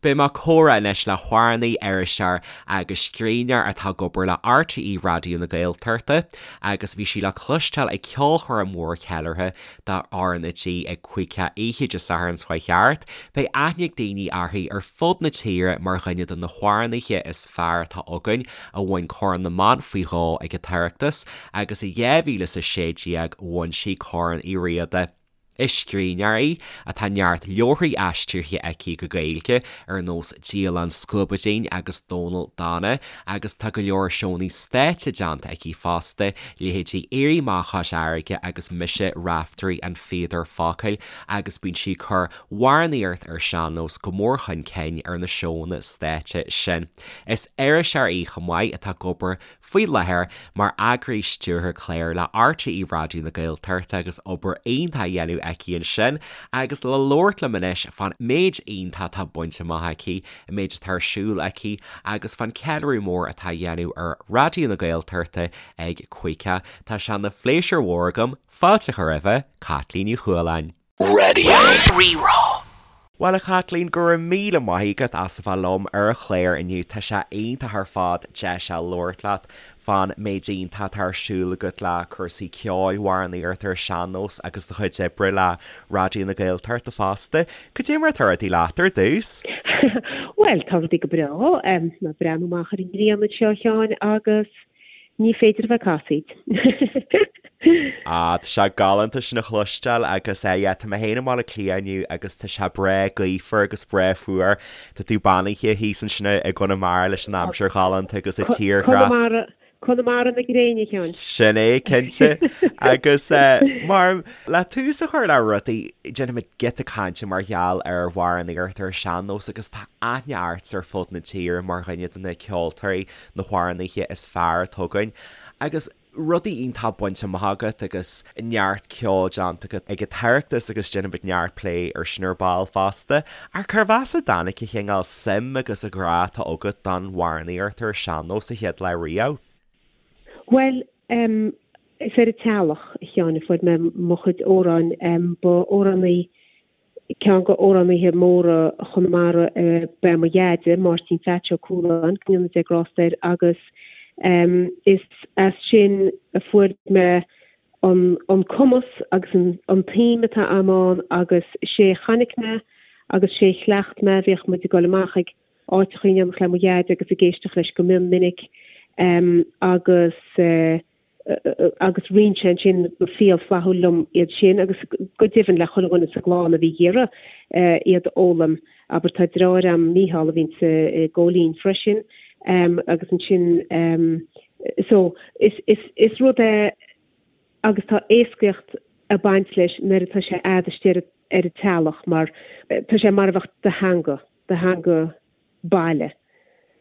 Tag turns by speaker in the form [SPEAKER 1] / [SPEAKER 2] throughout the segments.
[SPEAKER 1] Beidh mé ag comhrá anois le hamhránaí, iriseoir agus scríbhneoir atá ag obair le RTÉ Raidió na Gaeltachta agus bhí sí le cloisteáil ag ceolchoirm mhór cheiliúrtha do RnaG ag Caoicheadh oíche Dé Sathairn seo chuaigh thart. Beidh aithne ag daoine uirthi ar fud na tíre mar dhuine de na hamhránaithe is fearr atá againn a bhain Corn na mBan faoi dhó ag an tOireachtas agus i 2016 bhain sí Corn Uí Riada. Is scríbhneoir í atá neart leabharthaí aistrithe aici go Gaeilge ar nós Dialann Scuabaidín agus Dónal Dána agus tá go leor seónna stáitse déanta aici fosta, leithéidí Éirí Amach Chois Fharraige agus Mise Raiftearaí an Phíodair Focail agus bíonn sí ag cur amhránaíocht ar sean-nós go mór chun cinn ar na seónna stáitse sin. Is iriseoir í chomh maith atá ag obair faoi láthair mar eagraí stiúrtha clár le RTÉ Raidió na Gaeltachta agus obair iontach á dhéanamh aici ansin agus le labhairt liom anois fán méid iontach atá bainte amach aici, an méid atá ar siúl aici agus fán ceiliúradh mór atá á dhéanamh ar Raidió na Gaeltachta ag Caoicheadh. Tá sé ina phléisiúr mhór agam fáilte a chur roimhe, Caitlín Ní Chualáin.
[SPEAKER 2] Radio Rí-Rá.
[SPEAKER 1] Bhuel a Chaitlín, go raibh míle maith agat as a bheith liom ar an chlár inniu. Tá sé iontach ar fad deis a labhairt leat fán méid iontach atá ar siúl agat le cúrsaí ceoil, amhránaíocht ar sean-nós agus do chuid oibre le Raidió na Gaeltachta fosta. Cad é mar atá rudaí leat ar dtús?
[SPEAKER 3] Bhuel, tá rudaí go breá. Mé ag breathnú amach ar an ngrian anseo, a Sheáin, agus Ní féidir a bheith casaoid.
[SPEAKER 1] Ah, tá sé galánta sin a chloisteáil agus eh yeah, tá mé féin i mBaile Átha Cliath inniu agus tá sé breá gaofar agus breá fuar. Tá tú beannaithe thíos ansin i gConamara leis an aimsir ghalánta agus an tírdhreach.
[SPEAKER 3] Conamara, Conamara na gréine, a Sheáin.
[SPEAKER 1] Sin é, cinnte. Agus eh, mar, le tús a chur le rudaí, déanfaimid giota cainte mar gheall ar amhránaíocht ar sean-nós agus tá aithne ort ar fud na tíre mar dhuine de na ceoltóirí na hamhránaithe is fearr atá againn agus rudaí iontach bainte amach agat agus neart ceoil déanta agat ag an tOireachtas agus déanfaimid neart plé ar sin ar ball fosta. Ach cérbh as a dtáinig an chineál suim agus an grá atá agat don amhránaíocht ar sean-nós sa chéad lá riamh?
[SPEAKER 3] Bhuel, em, is ar an teallach, a Sheáin, a fuair mé mo chuid amhráin. Em, ba amhránaí Ceann de amhránaithe móra Chonamara ba ea mo dheaide, Máirtín Pheaits Ó Cualáin, go ndéana Dia grásta air, agus is as sin a fuair mé an cumas agus an tsuim atá a'm ann agus sé a chonaic mé agus sé a chleacht mé, bhíodh muid ag dul amach ag áiteacha in éineacht le mo dheaide agus ag éisteacht leis go mion minic agus. agus roinn sé ansin go fial flaithiúil liom iad sin agus go deimhin le chuile dhuine sa gclann a bhí ag iarraidh iad a fhoghlaim. Abair tá deartháir a'm, Mícheál, a bhíonns i gCóilín freisin agus ansin so is is is rud é agus tá éascaíocht ag baint leis nuair atá sé a'd istigh ar ar an teallach mar tá sé mar a bheadh do theanga, do theanga baile.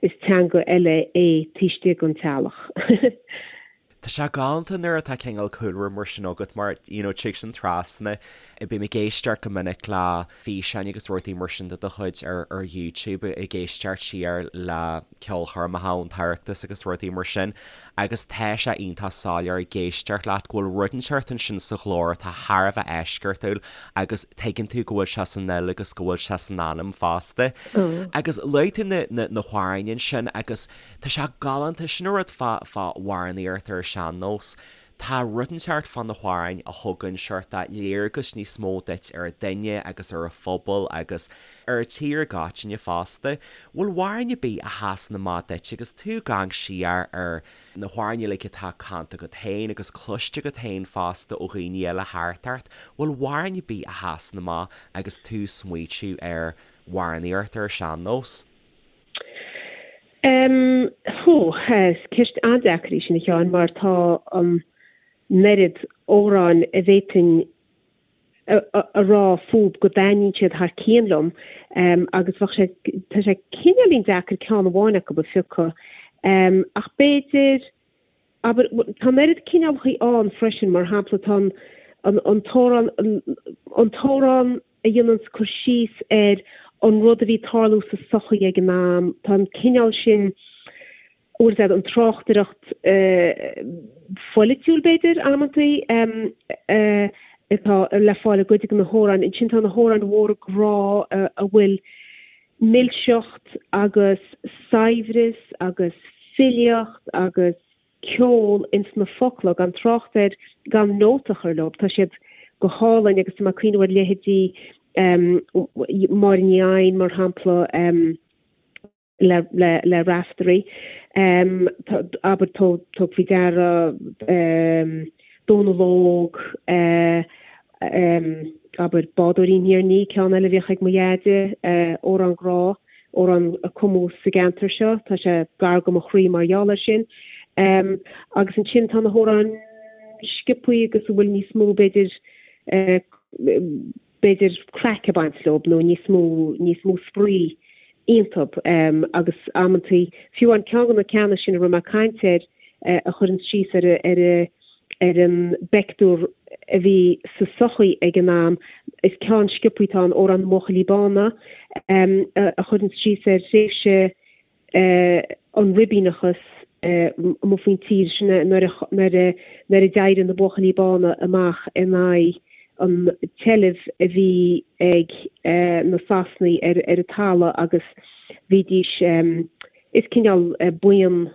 [SPEAKER 3] Is teanga eile é taobh istigh den teallach.
[SPEAKER 1] Tá sé galánta nuair atá cineál cúlra mar sin agat mar you know tig sin trasna. Bím ag éisteacht go minic le físeáin agus rudaí mar sin de do chuid ar ar YouTube ag éisteacht siar le ceolchoirmeacha ón tOireachtas agus rudaí mar sin agus tá sé iontach soiléir ag éisteacht leat go bhfuil rud inteacht ansin sa ghlór atá thar a bheith eisceachtúil agus tuigeann tú go bhfuil sé san fhuil agus go bhfuil sé san anam fosta. Agus luaigh tú na, na, na hamhráin ansin agus tá sé galánta, sin an rud fá, fá amhránaíocht ar an sean-nós. Tá rud inteacht fá na hamhráin a thugann seort léargas níos mó duit ar an duine agus ar an phobal agus ar an tír i gcoitinne fosta. Bhfuil amhrán ar bith a sheasann amach duit agus tú ag amharc siar ar na hamhráin uilig atá canta agat féin agus cloiste agat féin fosta ó dhaoine eile thart ort, bhfuil amhrán ar bith a sheasann amach agus tú ag smaoitiú ar amhránaíocht ar an sean-nós?
[SPEAKER 3] Em, hú, is ceist an-deacair í sin a Sheáin mar tá an oiread amhráin a bhféadfainn a rá fúb go dtaitníonn siad thar cionn liom agus bheadh sé, tá sé cineáilín deacair ceann amháin acu a phiocadh. Ach b'fhéidir, abair, tá an oiread cineálacha ann freisin, mar shampla tá an, an t-amhrán, an t-amhrán a dhéananns cur síos ar an rud a bhí ag tarlú sa sochaí ag an am, tá an cineál sin, bhfuil a fhios agat, an tráchtaireacht pholaitiúil, b'fhéidir, amantaí, atá le fáil i gcuid de na hamhráin. Ansin tá na hamhráin mhóra grá a bhfuil. Milseacht agus saibhreas agus filíocht agus ceol ins na focla, gan trácht ar gan nóta a chur leo. Tá siad go hálainn agus tá mé ag cuimhneamh ar leithéidí Máire Ní Eidhin, mar shampla, le le Raiftearaí. Abair, tóg faoi deara Dónal Óg, abair, Bádóirín Thír an Fhia, ceann eile a bhíodh ag mo dheaide, amhrán grá, amhrán a cumadh sa gceantar seo, tá sé gar go mo chroí mar gheall air sin. Agus ansin tá na hamhráin sciobthaí agus a bhfuil níos mó, b'fhéidir, b'fhéidir craic ag baint leo nó níos mó, níos mó spraoi iontu agus amantaí, fiú an ceann de na ceanna sin a raibh mé ag caint air a chuireann síos ar ar ar an bpeictiúr a bhí sa sochaí ag an am, is ceann sciobthaí atá ann, Amhrán na mBuachaillí Bána, a chuireann síos ar thréimhse an ribíneachas amuigh faoin tír sin nuair a nuair a d'éirigh na Buachaillí Bána amach in aghaidh an tseilbh a bhí ag na Sasanaigh ar ar an talamh agus bhídís is cineál buíon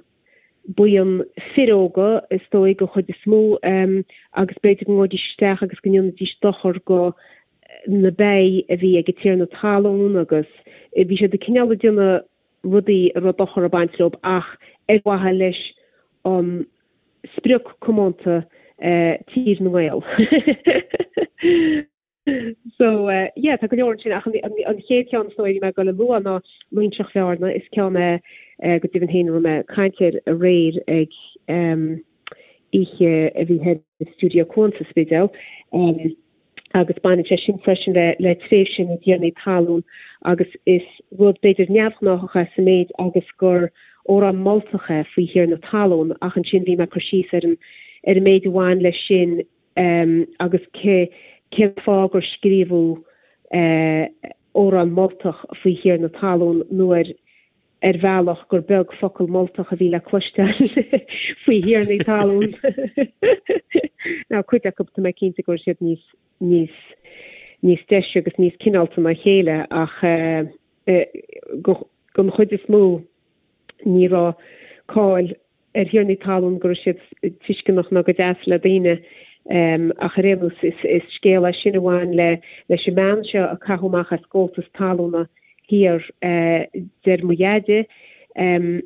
[SPEAKER 3] buíon fir óga is dóigh den chuid is mó agus b'fhéidir go ngabhaidís isteach agus go ndéanfaidís dochar go na ba a bhí ag an tiarna talún agus bhí siad ag cineál ag déanamh rudaí a raibh dochar ag baint leo ach ar mhaithe leis an sprioc comónta Tír na nGael. So yeah tá go leor ansin ach an chéad cheann is dóigh a bhí mé ag dul a lua ná Loingseach Bhearna, is ceann é go deimhin féin a raibh mé ag caint air aréir ag oíche a bhí thoir i Stiúideo Cuan sa Spidéal. Agus baineann sé sin freisin le le tréimhse na dtiarnaí talún agus is rud b'fhéidir neamhghnáthach é sa méid agus gur amhrán moltach é faoi thiarna talún ach ansin bhí mé ag cur síos ar an ar an méid a bhain leis sin agus cé cén fáth gur scríobhadh amhrán moltach faoi thiarna talún nuair ar bhealach gur beag focal moltach a bhí le cloisteáil faoi thiarnaí talún. Now cuid acu tá mé cinnte go raibh siad níos níos níos deise agus níos cineálta ná a chéile ach don chuid is mó ní raibh cáil ar thiarnaí talún go raibh siad tuisceanach ná go deas le daoine ach ar aon nós is scéal é sin a bhain le leis an mbean seo a caitheadh amach as gabháltas talúna thiar deir mo dheaide in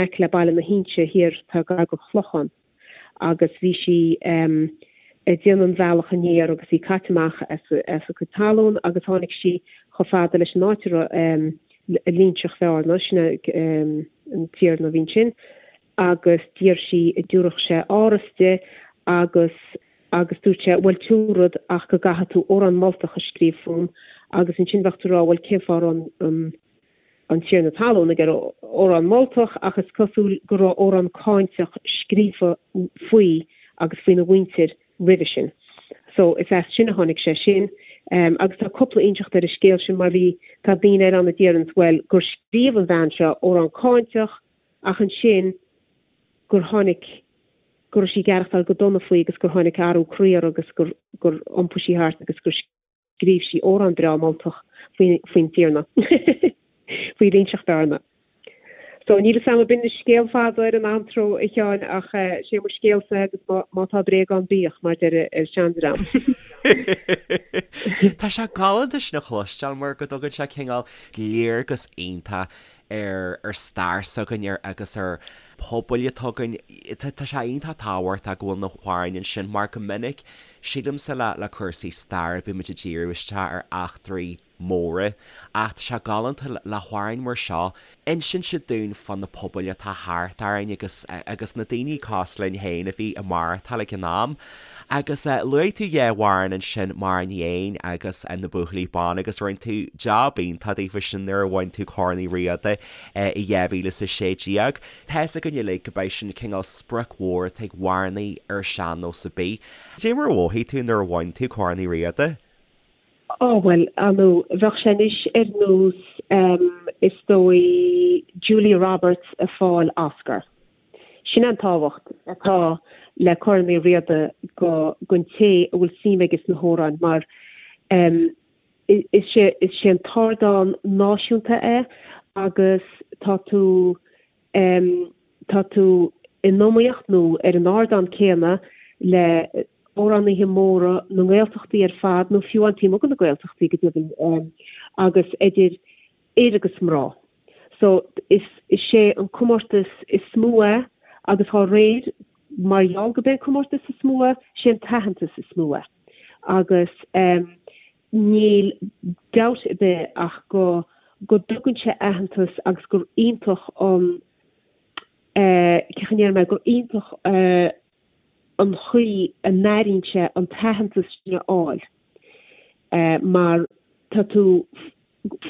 [SPEAKER 3] aice le Baile na hInse thiar tá gar go Clochán agus bhí sí ag déanamh an bhealach aniar agus í caite amach as a cuid talún agus tháinig sí chomh fada leis an áit a raibh Loingseach Bhearna, sin é an tiarna a bhí ansin, agus d'iarr sí an dtabharfadh sé áras di agus agus dúirt sé, bhuel tiúrfad ach go gcaithfidh tú amhrán moltach a scríobh fúm agus ansin bheadh tú ag rá bhuel cén fáth a raibh an an tiarna talún ag iarraidh amhrán moltach ach is cosúil go raibh amhrán cáinteach scríofa faoi agus faoina mhuintir roimhe sin. So is as sin a tháinig sé sin. Agus tá cúpla inseacht ar an scéal sin mar bhí, tá daoine eile ann a déarfas bhuel gur scríobh an bhean seo amhrán cáinteach ach ansin gur tháinig, go raibh sí ag aireachtáil go dona faoi agus gur tháinig athrú croí uirthi agus gur, gur iompaigh sí thart agus gur scríobh sí amhrán breá moltach faoin tiarna, faoi Loingseach Bhearna. So, níl 'fhios a'm, b'in scéal fada ar an antró, a Sheáin, ach sé mo scéalsa agus má tá bréag ann bíodh, mar deir an seandream.
[SPEAKER 1] Tá sé galánta sin a chloisteáil mar go dtugann sé cineál léargas iontach ar ar stair s'againn agus ar pobail atá againn. Tá sé iontach tábhachtach go bhfuil na hamhráin ansin mar go minic Sílimse le le cúrsaí staire bímid ag díriú isteach ar eachtraí móra ach tá sé galánta le hamhráin mar seo insíonn siad dúinn fá na pobail atá thart orainn agus agus na daoine cosúil linn féin a bhí ag maireachtáil ag an am. Agus luaigh tú dhá amhrán ansin Máire Ní Eidhin agus Na Buachaillí Bána agus rinne tú jab iontach daofa sin nuair a bhain tú Corn Uí Riada i 2016. Tá's againn uilig go b'é sin cineál sprioc mhór atá ag amhránaí ar sean-nós ar bith. Cad é mar a mhothaigh tú nuair a bhain tú Corn Uí Riada?
[SPEAKER 3] Ó, bhuel, ar ndóigh, bheadh sé anois ar nós, is dóigh, Julia Roberts ag fáil Oscar. Sin é an tábhacht atá le Corn Uí Riada go, don té a bhfuil suim aige sna hamhráin mar. Is é is é an t-ardán náisiúnta é agus tá tú tá tú in iomaíocht nó ar an ardán céanna le amhránaithe móra na nGaeltachtaí ar fad nó fiú amháin taobh amuigh de na Gaeltachtaí go deimhin agus idir fhir agus mná. So is is é an comórtas is mó é agus dhá réir mar gheall gurb é an comórtas is mó é, sé an t-aitheantas is mó é. Agus níl dabht ar bith ach go go dtugann sé aitheantas agus gur iontach an eh cén chaoi a ndéarfaidh mé gur iontach eh an chaoi a n-airíonn sé an t-aitheantas sin a fháil mar tá tú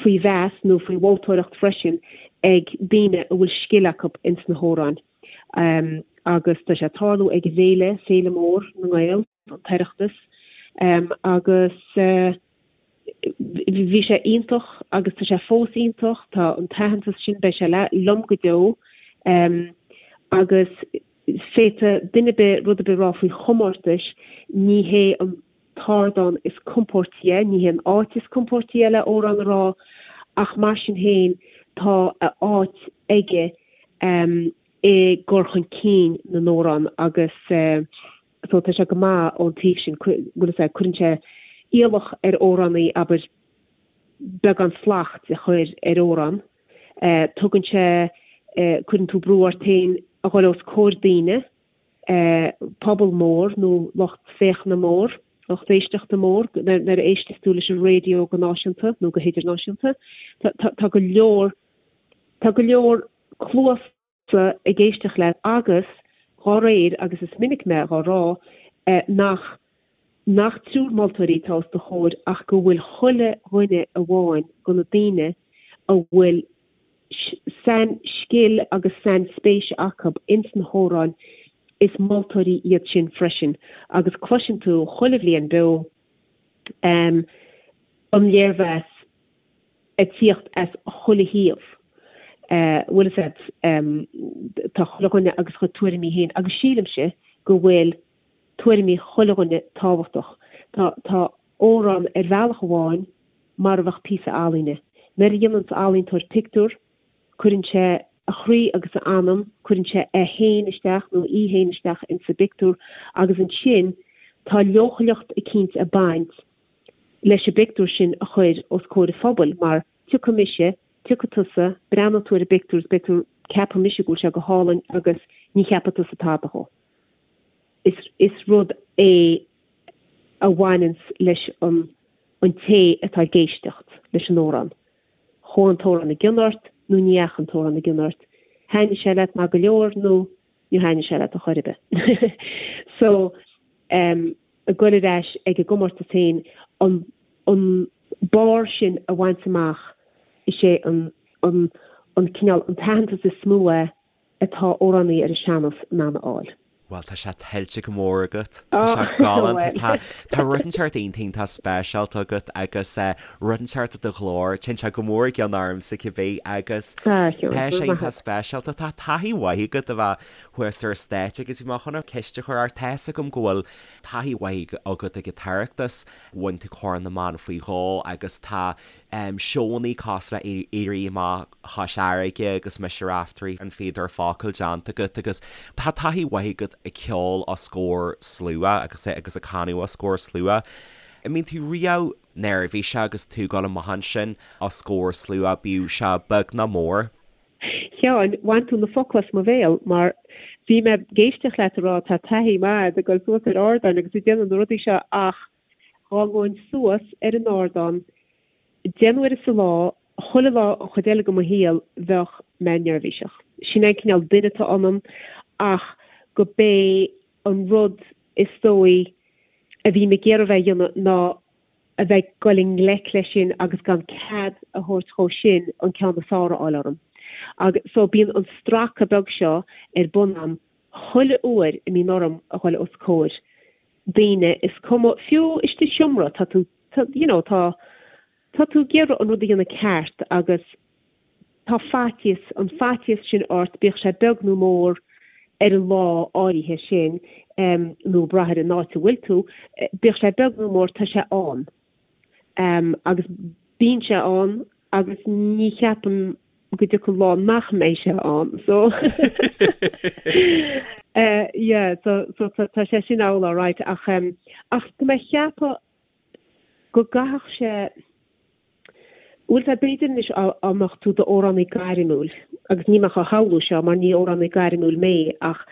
[SPEAKER 3] faoi mheas nó faoi mholtóireacht freisin ag daoine a bhfuil scil acu ins na hamhráin. Agus tá sé ag tarlú ag an bhféile, Féile Mór na nGael, an tOireachtas, agus bhí sé iontach agus tá sé fós iontach, tá an t-aitheantas sin, beidh sé liom go deo agus féadfaidh duine ar bith rud ar bith a rá faoi chomórtais, ní hé an t-ardán is compóirtí é, ní hé an áit is compóirtí é le amhrán a rá ach mar sin féin tá a áit aige i gcur chun cinn na n-amhrán agus so tá sé go maith ón taobh sin, bhfuil fhios a'd, cuireann sé iallach ar amhránaí, abair, beagán slacht a chur ar amhrán. Tugann sé, cuireann tú brú ort féin a dhul os comhair daoine, pobal mór nó lucht féachana mór, lucht éisteachta mór, nuair a éisteas tú leis an raidió go náisiúnta nó go hidirnáisiúnta. Tá go leor, tá go leor cluas ag éisteacht leat agus dhá réir, agus is minic mé dhá rá, nach nach triúr moltóirí atá os do chomhair ach go bhfuil chuile dhuine amháin de na daoine a bhfuil sain-scil agus sain-spéis acu ins na hamhráin, is moltóirí iad sin freisin agus cloiseann tú chuile bhliain beo an léirmheas ag tíocht as chuile thaobh. Bhfuil fhios a'd, tá chuile dhuine agus a chuid tuairimí féin agus sílimse go bhfuil tuairimí chuile dhuine tábhachtach. Tá, tá amhrán ar bhealach amháin mar a bheadh píosa ealaíne. Nuair a dhéananns ealaíontóir pictiúr, cuireann sé a chroí agus a anam, cuireann sé é féin isteach nó í féin isteach insa bpictiúr agus ansin tá leochaileacht eicínt ag baint leis an bpictiúr sin a chur os comhair an phobail mar tiocfaidh mise, tiocfaidh tusa, breathnóidh tú ar an bpictiúr is beidh tú, ceapfaidh mise go bhfuil sé go hálainn agus ní cheapfaidh tusa tada dhó. Is, is rud é a bhaineanns leis an, an té atá ag éisteacht leis an amhrán. Chuaigh an t-amhrán i gcion ort nó ní dheachaigh an t-amhrán i gcion ort. Thaitnigh sé leat maith go leor nó níor thaitnigh sé leat ar chor ar bith. So, em. ag goil ar ais ag an gcomórtas féin, an an barr sin a bhaint amach, is é an an an cineál, an t-aitheantas is mó é atá amhránaí ar an sean-nós in ann a fháil.
[SPEAKER 1] Bhuel, tá sé tuillte go mór agat. Tá sé galánta. Tá tá rud inteacht iontach iontach speisialta agat agus rud inteacht i do ghlór. Téann sé go mór i gcion ormsa cibé agus tá sé iontach speisialta. Tá taithí mhaith agat a bheith thuas ar stáitse agus bhí mé chun ceist a chur ort. Tá fhios agam go bhfuil taithí mhaith agat ag an tOireachtas, bhain tú Corn na mBan faoi dhó agus tá seónnaí cosúil le Éirí Amach Chois Fharraige agus Mise Raiftearaí, An Fíodóir Focal déanta agat agus tá taithí mhaith agat ag ceol os comhair slua agus agus ag canadh os comhair slua. An mbíonn tú riamh neirbhíseach agus tú ag dul amach ansin os comhair slua, bíodh sé beag nó mór?
[SPEAKER 3] Sheáin, bhain tú na focla as mo bhéal mar bhí mé ag éisteacht leat ag rá tá taithí mhaith a'd ag dul suas ar ardáin agus ag déanamh na rudaí seo ach dhá ngabhainn suas ar an ardán deich n-uaire sa lá chuile lá an chuid eile de mo shaol bheadh mé neirbhíseach. Sin é an cineál duine atá ionam ach go b'é an rud is dóigh a bhím ag iarraidh a bheith a dhéanamh ná a bheith ag dul i ngleic leis sin agus gan cead a thabhairt dhó sin an ceann is fearr a fháil orm. Agus so bíonn an stracadh beag seo ar bun a'm chuile uair a mbíonn orm a dhul os comhair daoine, is cuma, fiú istigh i seomra, tá tú, tá, you know, tá, tá tú ag iarraidh an rud a dhéanamh ceart agus tá faitíos, an faitíos sin ort, bíodh sé beag nó mór, ar an lá áirithe sin, nó ag brath ar an áit a bhfuil tú, bíodh sé beag nó mór, tá sé ann. Agus bíonn sé ann agus ní cheapaim go dtiocfaidh lá nach mbeidh sé ann. So yeah, so so tá sé sin amhlaidh alright ach ach tá mé ag ceapadh go gcaithfeadh sé bhfuil sé b'fhéidir anois dá mbeadh tú i d'amhránaí gairmiúil agus níl mé á shamhlú seo mar ní amhránaí gairmiúil mé ach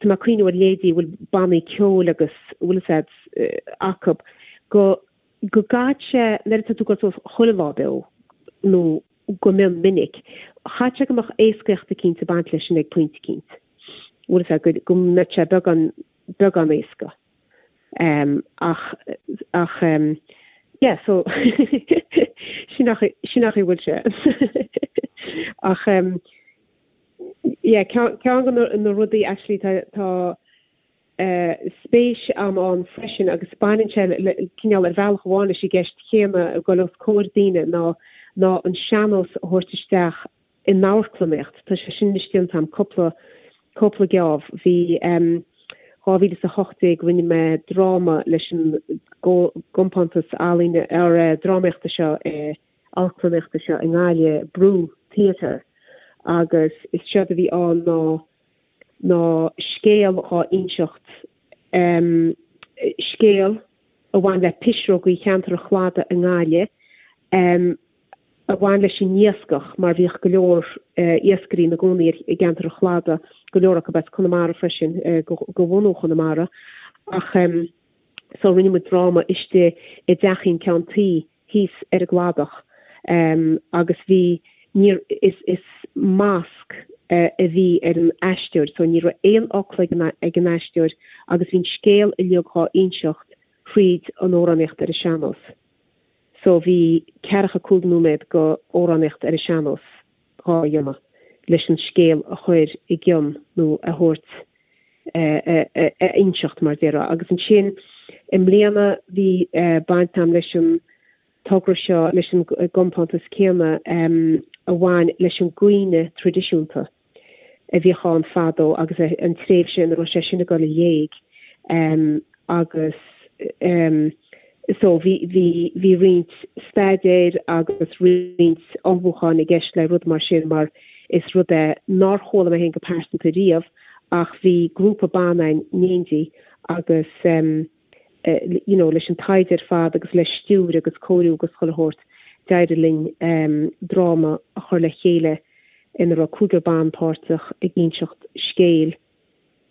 [SPEAKER 3] tá mé ag cuimhniú ar leithéidí a bhfuil bannaí ceoil agus bhfuil a fhios a'd acu go go gcaithfidh sé nuair atá tú ag dul suas chuile lá beo nó go mion minic, chaithfeadh sé go mbeadh éascaíocht eicínt ag baint leis sin ag pointe eicínt. Bhfuil a fhios a'd, go mbeadh sé beagán, beagán éasca. Ach, ach yeah, so sin an chaoi, sin an chaoi a bhfuil sé. Ach yeah, ceann de na rudaí actually tá, tá, spéis a'm ann freisin agus baineann sé le cineál ar bhealach amháin leis an gceist chéanna ag dul os comhair daoine ná ná an sean-nós a thabhairt isteach in amharclannaíocht. Tá sé sin anois déanta a'm cúpla cúpla geábh. Bhí 2018 rinne mé dráma leis an gcompántas ealaíne or drámaíochta seo i amharclannaíochta seo i nGaillimh, Brú Theatre agus is séard a bhí ann ná ná scéal dhá inseacht, scéal a bhain le pisreogaí cheantar an Chladaigh i nGaillimh, a bhain leis an iascach mar bhíodh go leor iascairí ina gcónaí i gceantar an Chladaigh, go leor acu as Conamara freisin, de bhunú Chonamara. Ach so rinne muid dráma istigh i dteachín ceann tuí thíos ar an gcladach agus bhí, níor, is, is masc a bhí ar an aisteoir so ní raibh aon fhocal ag an, ag an aisteoir agus bhí an scéal uilig dhá inseacht thríd an amhránaíocht ar an sean-nós. So bhí ceathracha 5 nóiméad go amhránaíocht ar an sean-nós dhá dhéanamh leis an scéal a chur i gcionn nó a thabhairt a inseacht, mar déarfá. Agus ansin i mbliana bhí baint a'm leis an togra seo, leis an gcompántas céanna a bhain leis an gcaoineadh traidisiúnta a bhíodh ann fadó agus an tréimhse ina raibh sé sin ag dul i léig agus so bhí, bhí, bhí roinnt staidéir agus roinnt ullmhúcháin i gceist le rud mar sin mar is rud é nár chuala mé féin go pearsanta riamh ach bhí grúpa ban ann in éindí agus you know leis an taighde ar fad agus le stiúir agus cóiriú agus chuile shórt d'éirigh linn dráma a chur le chéile ina raibh cúigear ban páirteach ag inseacht scéil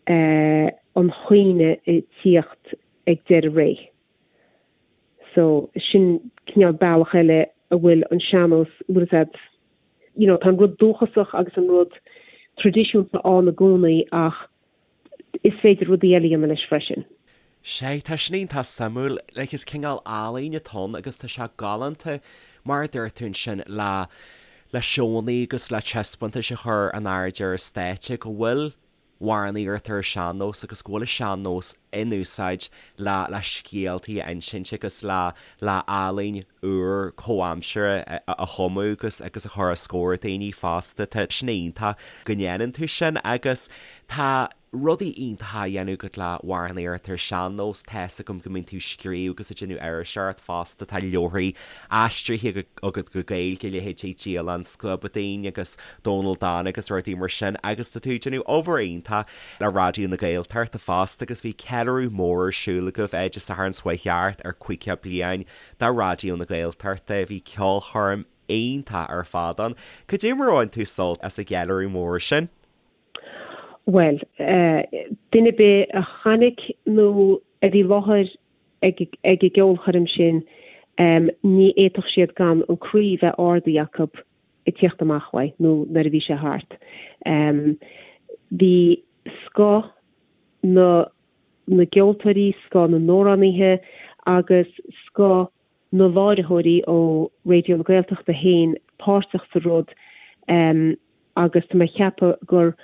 [SPEAKER 3] an chaoineadh ag tíocht ag deireadh ré. So sin cineál bealach eile a bhfuil an sean-nós, bhfuil a fhios a'd, you know, tá an rud dúchasach agus an rud traidisiúnta ann i gcónaí ach is féidir rudaí eile a dhéanamh leis freisin.
[SPEAKER 1] Sea, tá sin iontach suimiúil. Like, is cineál ealaín atá ann agus tá sé galánta, mar a dúirt tú ansin, le le seónna agus le taispeántais a chur in airde ar an stáitse go bhfuil amhránaíocht ar an sean-nós agus go bhfuil an sean-nós in úsáid le le scéaltaí a insint agus le le ealaín úr comhaimseartha a chumadh agus agus a chur os comhair daoine fosta. Tá sin iontach go ndéanann tú sin agus tá rudaí iontacha á dhéanamh agat le hamhránaíocht ar sean-nós. Tá's agam go mbíonn tú ag scríobh agus ag déanamh iriseoireacht fosta. Tá leabharthaí aistrithe agat go Gaeilge, leithéidí Dialann Scuabadaoin agus Dónal Dána agus rudaí mar sin agus tá tú ag déanamh obair iontach le Raidió na Gaeltachta fosta agus bhí ceiliúradh mór ar siúl agaibh Dé Sathairn seo chuaigh thart ar 50 bliain de Raidió na Gaeltachta. Bhí ceolchoirm iontach ar fad ann. Cad é mar a bhain tú sult as an gceiliúradh mór sin?
[SPEAKER 3] Bhuel, duine ar bith a chonaic nó a bhí i láthair ag an gceolchoirm sin, ní fhéadfadh siad gan an croí bheith ardaithe acu ag tíocht amach uaidh nó nuair a bhí sé thart. Bhí scoth na na gceoltóirí, scoth na n-amhránaithe agus scoth na láithreoirí ó Raidió na Gaeltachta féin páirteach sa rud agus tá mé ag ceapadh gur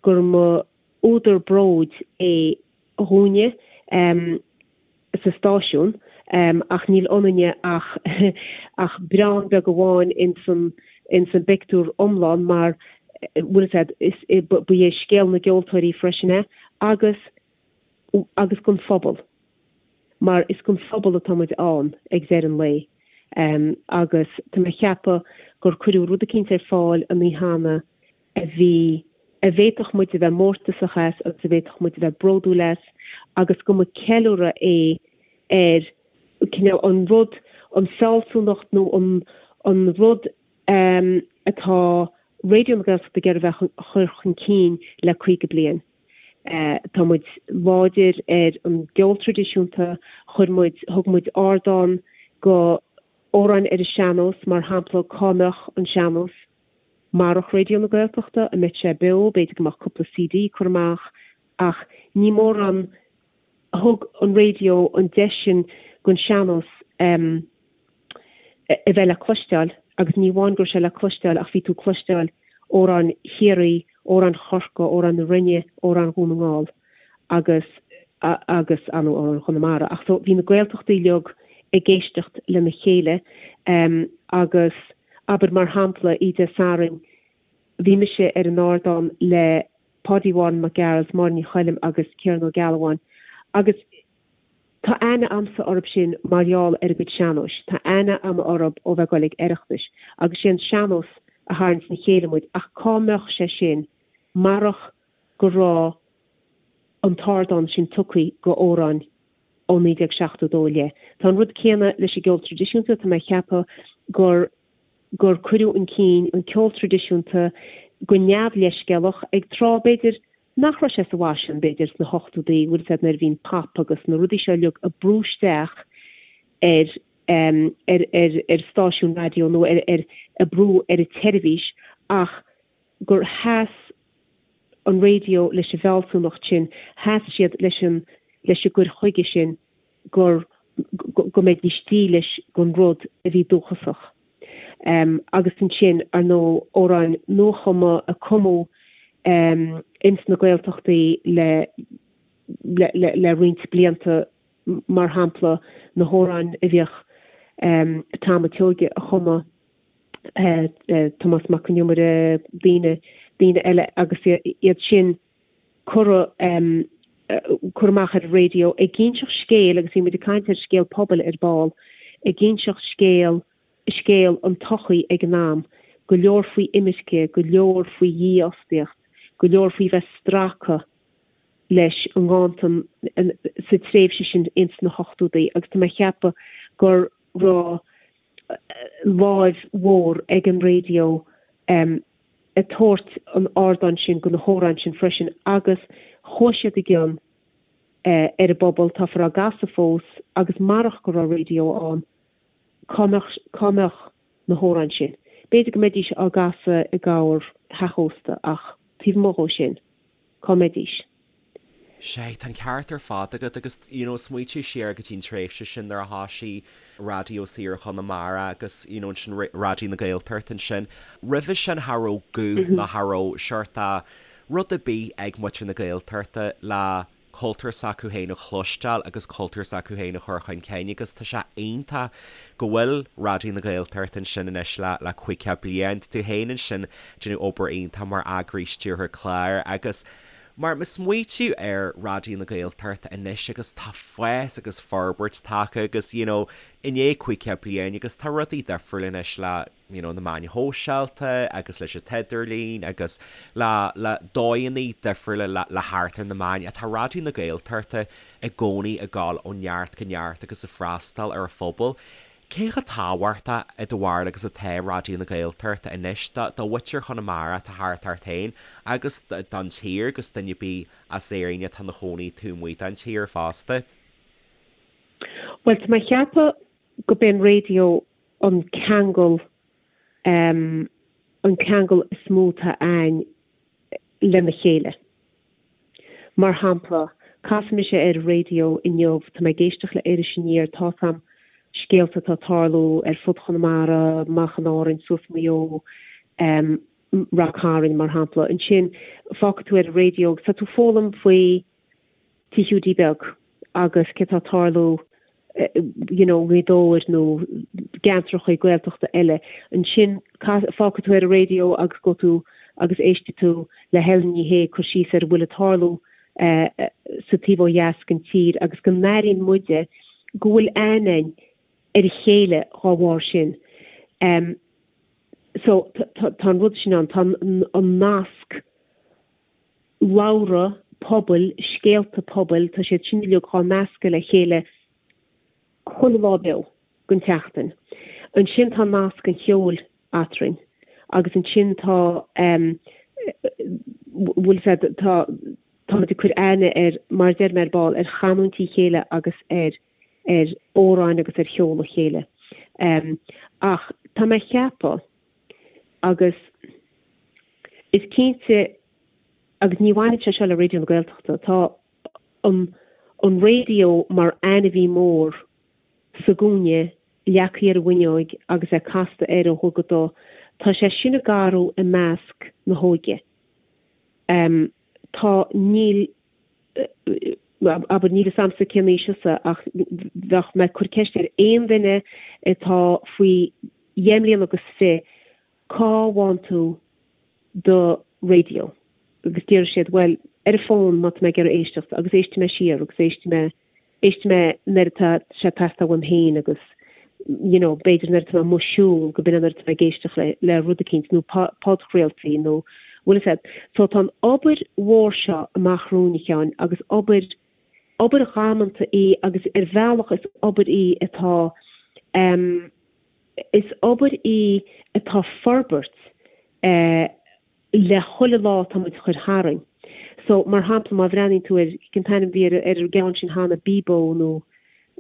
[SPEAKER 3] gur mba údar bróid é dhúinne sa stáisiún ach níl ionainne ach ach braon beag amháin ins an ins an bpictiúr iomlán mar bhfuil a fhios a'd is ba é scéal na gceoltóirí freisin é agus agus don phobal. Mar is don phobal atá muid ann ag deireadh an lae. Agus tá mé ag ceapadh gur cuireadh rud eicínt ar fáil an oíche cheana a bhí, a bhféadfadh muid a bheith mórtasach as agus a bhféadfadh muid a bheith bródúil as agus go mba ceiliúradh é ar cineál an rud, an fealsúnacht nó an, an rud atá Raidió na Gaeltachta ag iarraidh a bheith a chur chun cinn le 50 bliain. Tá muid láidir ar an gceol traidisiúnta, chuir muid, thug muid ardán go amhráin ar an sean-nós, mar shampla cá mbeadh an sean-nós marach Raidió na Gaeltachta, an mbeadh sé beo, b'fhéidir go mbeadh cúpla CD curtha amach ach ní mórán, thug an raidió an deis sin don sean-nós a bheith le cloisteáil agus ní amháin go raibh sé le cloisteáil ach bhí tú ag cloisteáil amhráin Chiarraí, amhráin Chorcaí, amhráin na Rinne, amhráin Dhún na nGall agus agus ar ndóigh amhráin Chonamara. Ach so bhí na Gaeltachtaí uilig ag éisteacht lena chéile agus abair mar shampla oíche Dé Sathairn bhí mise ar an ardán le Páidí Mháire Mac Gearailt, Máire Ní Choilm agus Ciarán Ó Gealbháin agus tá aithne a'msa orthub sin mar gheall ar a gcuid sean-nóis. Tá aithne a'm orthub ó bheith ag goil ag Oireachtais agus sé an sean-nós a tharraings le chéile muid ach cá mbeadh sé sin marach go raibh an t-ardán sin tugtha go amhráin ó 1972 i leith. Tá an rud céanna leis an gceol traidisiúnta, tá mé ag ceapadh gur gur cuireadh chun cinn an ceol traidisiúnta go neamhleithscéalach ag tráth, b'fhéidir, nach raibh sé sa bhfaisean, b'fhéidir, sna hochtódaí, bhfuil fhios a'd, nuair a bhí an pop agus na rudaí seo uilig ag brú isteach ar ar ar ar stáisiún raidió nó ar ar ag brú ar an tseirbhís ach gur sheas an raidió leis an bhfealsúnacht sin, sheas siad leis an leis an gcur chuige sin gur go mbeidís dílis don rud a bhí dúchasach. Agus ansin, ar ndóigh, amhráin nuachumtha a cumadh ins na Gaeltachtaí le le roinnt blianta, mar shampla, na hamhráin a bhíodh Tom a' tSeoighe a chumadh, Tomás Mac Con Iomaire, daoine daoine eile agus iad sin curtha curtha amach ar an raidió ag inseacht scéil agus bhí muid ag caint ar scéal pobail ar ball, ag inseacht scéal, scéal an tsochaí ag an am, go leor faoi imirce, go leor faoi dhífhostaíocht, go leor faoi bheith stractha leis an nganntan sa tréimhse sin ins na hochtódaí agus tá mé ag ceapadh go raibh láimh mhór ag an raidió ag tabhairt an ardáin sin go na hamhráin sin freisin agus chuaigh siad i gcion ar an bpobal, táthar á gcasadh fós agus marach go raibh raidió ann cá mbeadh, cá mbeadh na hamhráin sin? B'fhéidir go mbeidís á gcasadh i gcorr theach ósta ach taobh amuigh dhó sin, cá mbeidís?
[SPEAKER 1] Sea, tá an ceart ar fad agat agus, you know, smaointigh siar go dtí an tréimhse sin nuair a thoisigh Raidió Saor Chonamara agus, you know, ansin Raidió na Gaeltachta ansin. Roimhe sin cha raibh guth ná cha raibh seort a' rud ar bith ag muintir na Gaeltachta le cultúr s'acu féin a chloisteáil agus cultúr s'acu féin a chur chun cinn agus tá sé iontach go bhfuil Raidió na Gaeltachta ansin anois le le 50 bliain. Tá tú féin ansin déanamh obair iontach mar eagraí stiúrthóir cláir agus mar má smaointiú ar Raidió na Gaeltachta anois agus tá fás agus forbairt tagtha agus you know i ndiaidh 50 bliain agus tá rudaí difriúil anois le you know na meáin shóisialta agus leis an t-idirlíon agus le le dóigheanna difriúla le le theacht ar na meáin ach tá Raidió na Gaeltachta i gcónaí ag gabháil ó neart go neart agus ag freastal ar a phobal. Cé chomh tábhachtach i do bharúil agus atá Raidió na Gaeltachta anois do do mhuintir Chonamara atá thart ort féin agus don tír agus duine ar bith as Éirinn atá ina chónaí taobh amuigh den tír fosta?
[SPEAKER 3] Bhuel, tá mé ag ceapadh go b'é an raidió an ceangal, an ceangal is mó atá a'ainn lena chéile. Mar shampla, casfaidh mise ar an raidió inniu, tá mé ag éisteacht le Iris Aniar, tá 'fhios a'm scéalta atá ag tarlú ar fud Chonamara, amach in Árainn, suas Maigh Eo, Rath Cairn, mar shampla. Ansin, fágfaidh tú ar an raidió agus tá tú ag foghlaim faoi Tigh Hiúdaí Beag agus cé tá ag tarlú you know i nGaoth Dobhair nó gceantracha Gaeltachta eile. Ansin fágfaidh tú ar an raidió agus gabhfaidh tú agus éistfidh tú le Helen Ní Shé ag cur síos ar a bhfuil ag tarlú sa taobh ó dheas den tír agus go n-airíonn muide go bhfuil aithne a'inn. ar a chéile dhá bharr sin. So tá an rud sin ann, tá an nasc labhra pobail, scéalta pobail, tá siad sin uilig dhá nascadh le chéile chuile lá beo den tseachtain. Ansin tá nasc an cheoil eatrainn agus ansin tá bhfuil a fhios agat, tá táimid ag cur aithne ar, mar a deir mé ar ball, ar chanúintí a chéile agus ar ar amhráin agus ar cheol a chéile. Ach tá mé ag ceapadh, agus is cinnte, agus ní bhaineann sé seo le Raidió na Gaeltachta, tá an an raidió mar ainmhí mór sa gcúinne, leagtha ar an bhfuinneoig agus é casta air ó dhubh go dubh, tá sé sin ag athrú i measc na hóige. Tá, níl, abair, níl fhios a'msa cén aois thusa ach bheadh mé ag cur ceist ar aon duine atá faoi dheich mbliana agus fi' cá bhfaigheann tú do raidió? Agus déarfaidh siad bhuel ar an bhfón má tá mé ag iarraidh éisteacht agus éistfidh mé siar agus éistfidh mé éistfidh mé nuair atá sé ag teastáil uaim féin agus you know b'fhéidir nuair atá mé amuigh ag siúl go b'in é nuair atá mé ag éisteacht le le rud eicínt nó podchraoltaí nó bhfuil fhios a'd. So tá an obair mhór seo amach romhainn a Sheáin agus obair obair dhamanta í agus ar bhealach is obair í atá em is obair í atá ag forbairt eh le chuile lá atá muid a chur tharainn. So, mar shampla, má bhreathnaíonn tú ar, cén t-ainm a bhí ar ar an gceann sin cheana, Bebo nó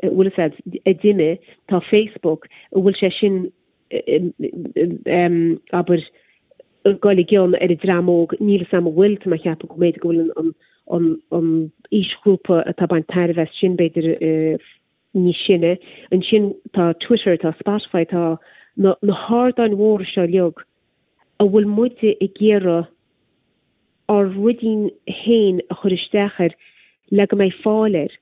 [SPEAKER 3] bhfuil fhios a'd, a d'imigh, tá Facebook, an bhfuil sé sin em abair ag goil i gcion ar an dream óg, níl fhios a'm an bhfuil, tá mé ag ceapadh go mb'fhéidir go bhfuil an an an aoisghrúpa atá ag baint tairbhe as sin b'fhéidir níos sine. Ansin tá Twitter, tá Spotify, tá na na hardáin mhóra seo uilig a bhfuil muide ag iarraidh ár ruidín féin a chur isteach air le go mbeidh fáil air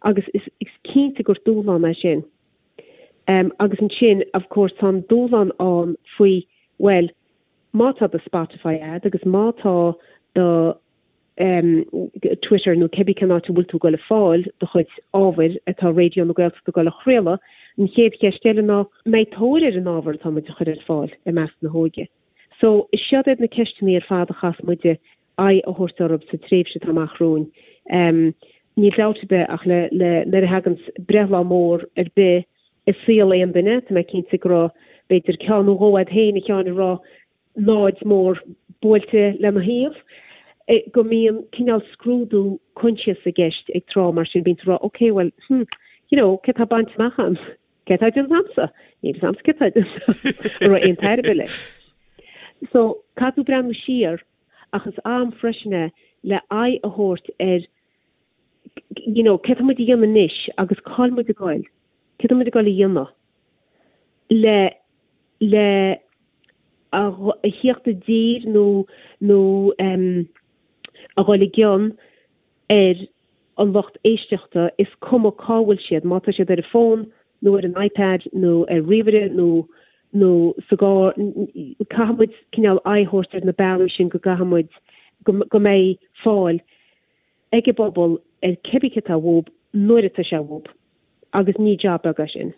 [SPEAKER 3] agus is cinnte gur dúshlán é sin. Agus ansin of course tá an dúshlán ann faoi bhuel má tá do Spotify a'd agus má tá do Twitter nó cibé cén áit a bhfuil tú ag goil ag fáil do chuid ábhair atá Raidió na Gaeltachta ag goil a chraoladh, an chéad cheist eile ná, mbeidh tóir ar an ábhar atá muid a chur ar fáil i measc na hóige? So, is siod iad na ceisteanna ar fad a chaithfeas muide aghaidh a thabhairt orthu sa tréimhse atá amach romhainn. Níl dabht ar bith ach le, le, nuair a thaganns breithlá mór ar bith i saol aon duine, tá mé cinnte go raibh b'fhéidir ceann nó dhó a'd féin, a Sheáin, a raibh náid mór buailte lena thaobh, go mbíonn cineál scrúdú coinsiasa i gceist ag tráth mar sin, bíonn tú ag rá ok well hmm you know céard tá bainte amach a'm? Céard tá déanta a'msa? Níl fhios a'msa céard tá déanta a'm. An raibh aon tairbhe leis? So caithfidh tú breathnú siar ach is am freisin é le aghaidh a thabhairt ar you know céard tá muid a dhéanamh anois agus cá'il muid ag goil? Céard tá muid ag goil a dhéanamh le le a thíocht i dtír nó nó a dhul i gcion ar an lucht éisteachta, is cuma cá bhfuil siad, má tá siad ar an bhfón nó ar an iPad nó ar ríomhaire nó nó sa gcarr, caithfidh muid cineál aghaidh a thabhairt ar na bealaí sin go gcaithfidh muid go mbeidh fáil ag an bpobal ar cibé céard atá uathu nuair atá sé uathu. Agus ní job beag é sin.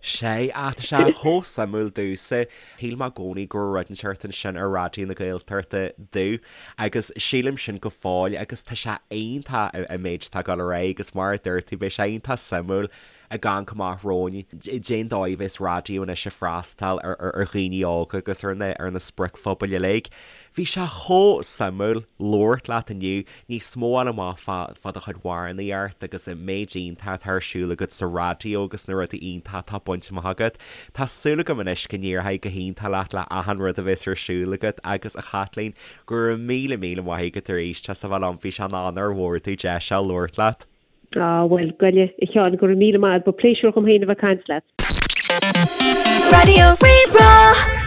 [SPEAKER 1] Sea, ach tá sé chomh suimiúil domhsa. Shíl mé i gcónaí go raibh rud inteacht ansin ar Raidió na Gaeltachta domh agus sílim sin go fóill agus tá sé iontach an méid atá ag dul ar aghaidh agus mar a dúirt tú beidh sé iontach suimiúil ag amharc amach romhainn cén dóigh a bheas raidió anois ag freastal ar dhaoine óga agus ar na ar na spriocphobail uilig. Bhí sé chomh suimiúil labhairt leat inniu. níos mó a fháil amach fá do chuid amhránaíocht agus an méid iontach atá ar siúl agat sa raidió agus na rudaí iontacha atá bainte amach agat. Tá súil agam anois go n-éireoidh go hiontach leat le achan rud a bheas ar siúl agat agus a Chaitlín, go raibh míle míle maith agat arís as a bheith liom, bhí sé ina onóir mhór domh deis seo labhairt leat.
[SPEAKER 3] Á, bhuel, goile, a Sheáin, go raibh míle maith agat, ba pléisiúr dhom féin a bheith ag caint leat.
[SPEAKER 2] Raidió Rí-Rá.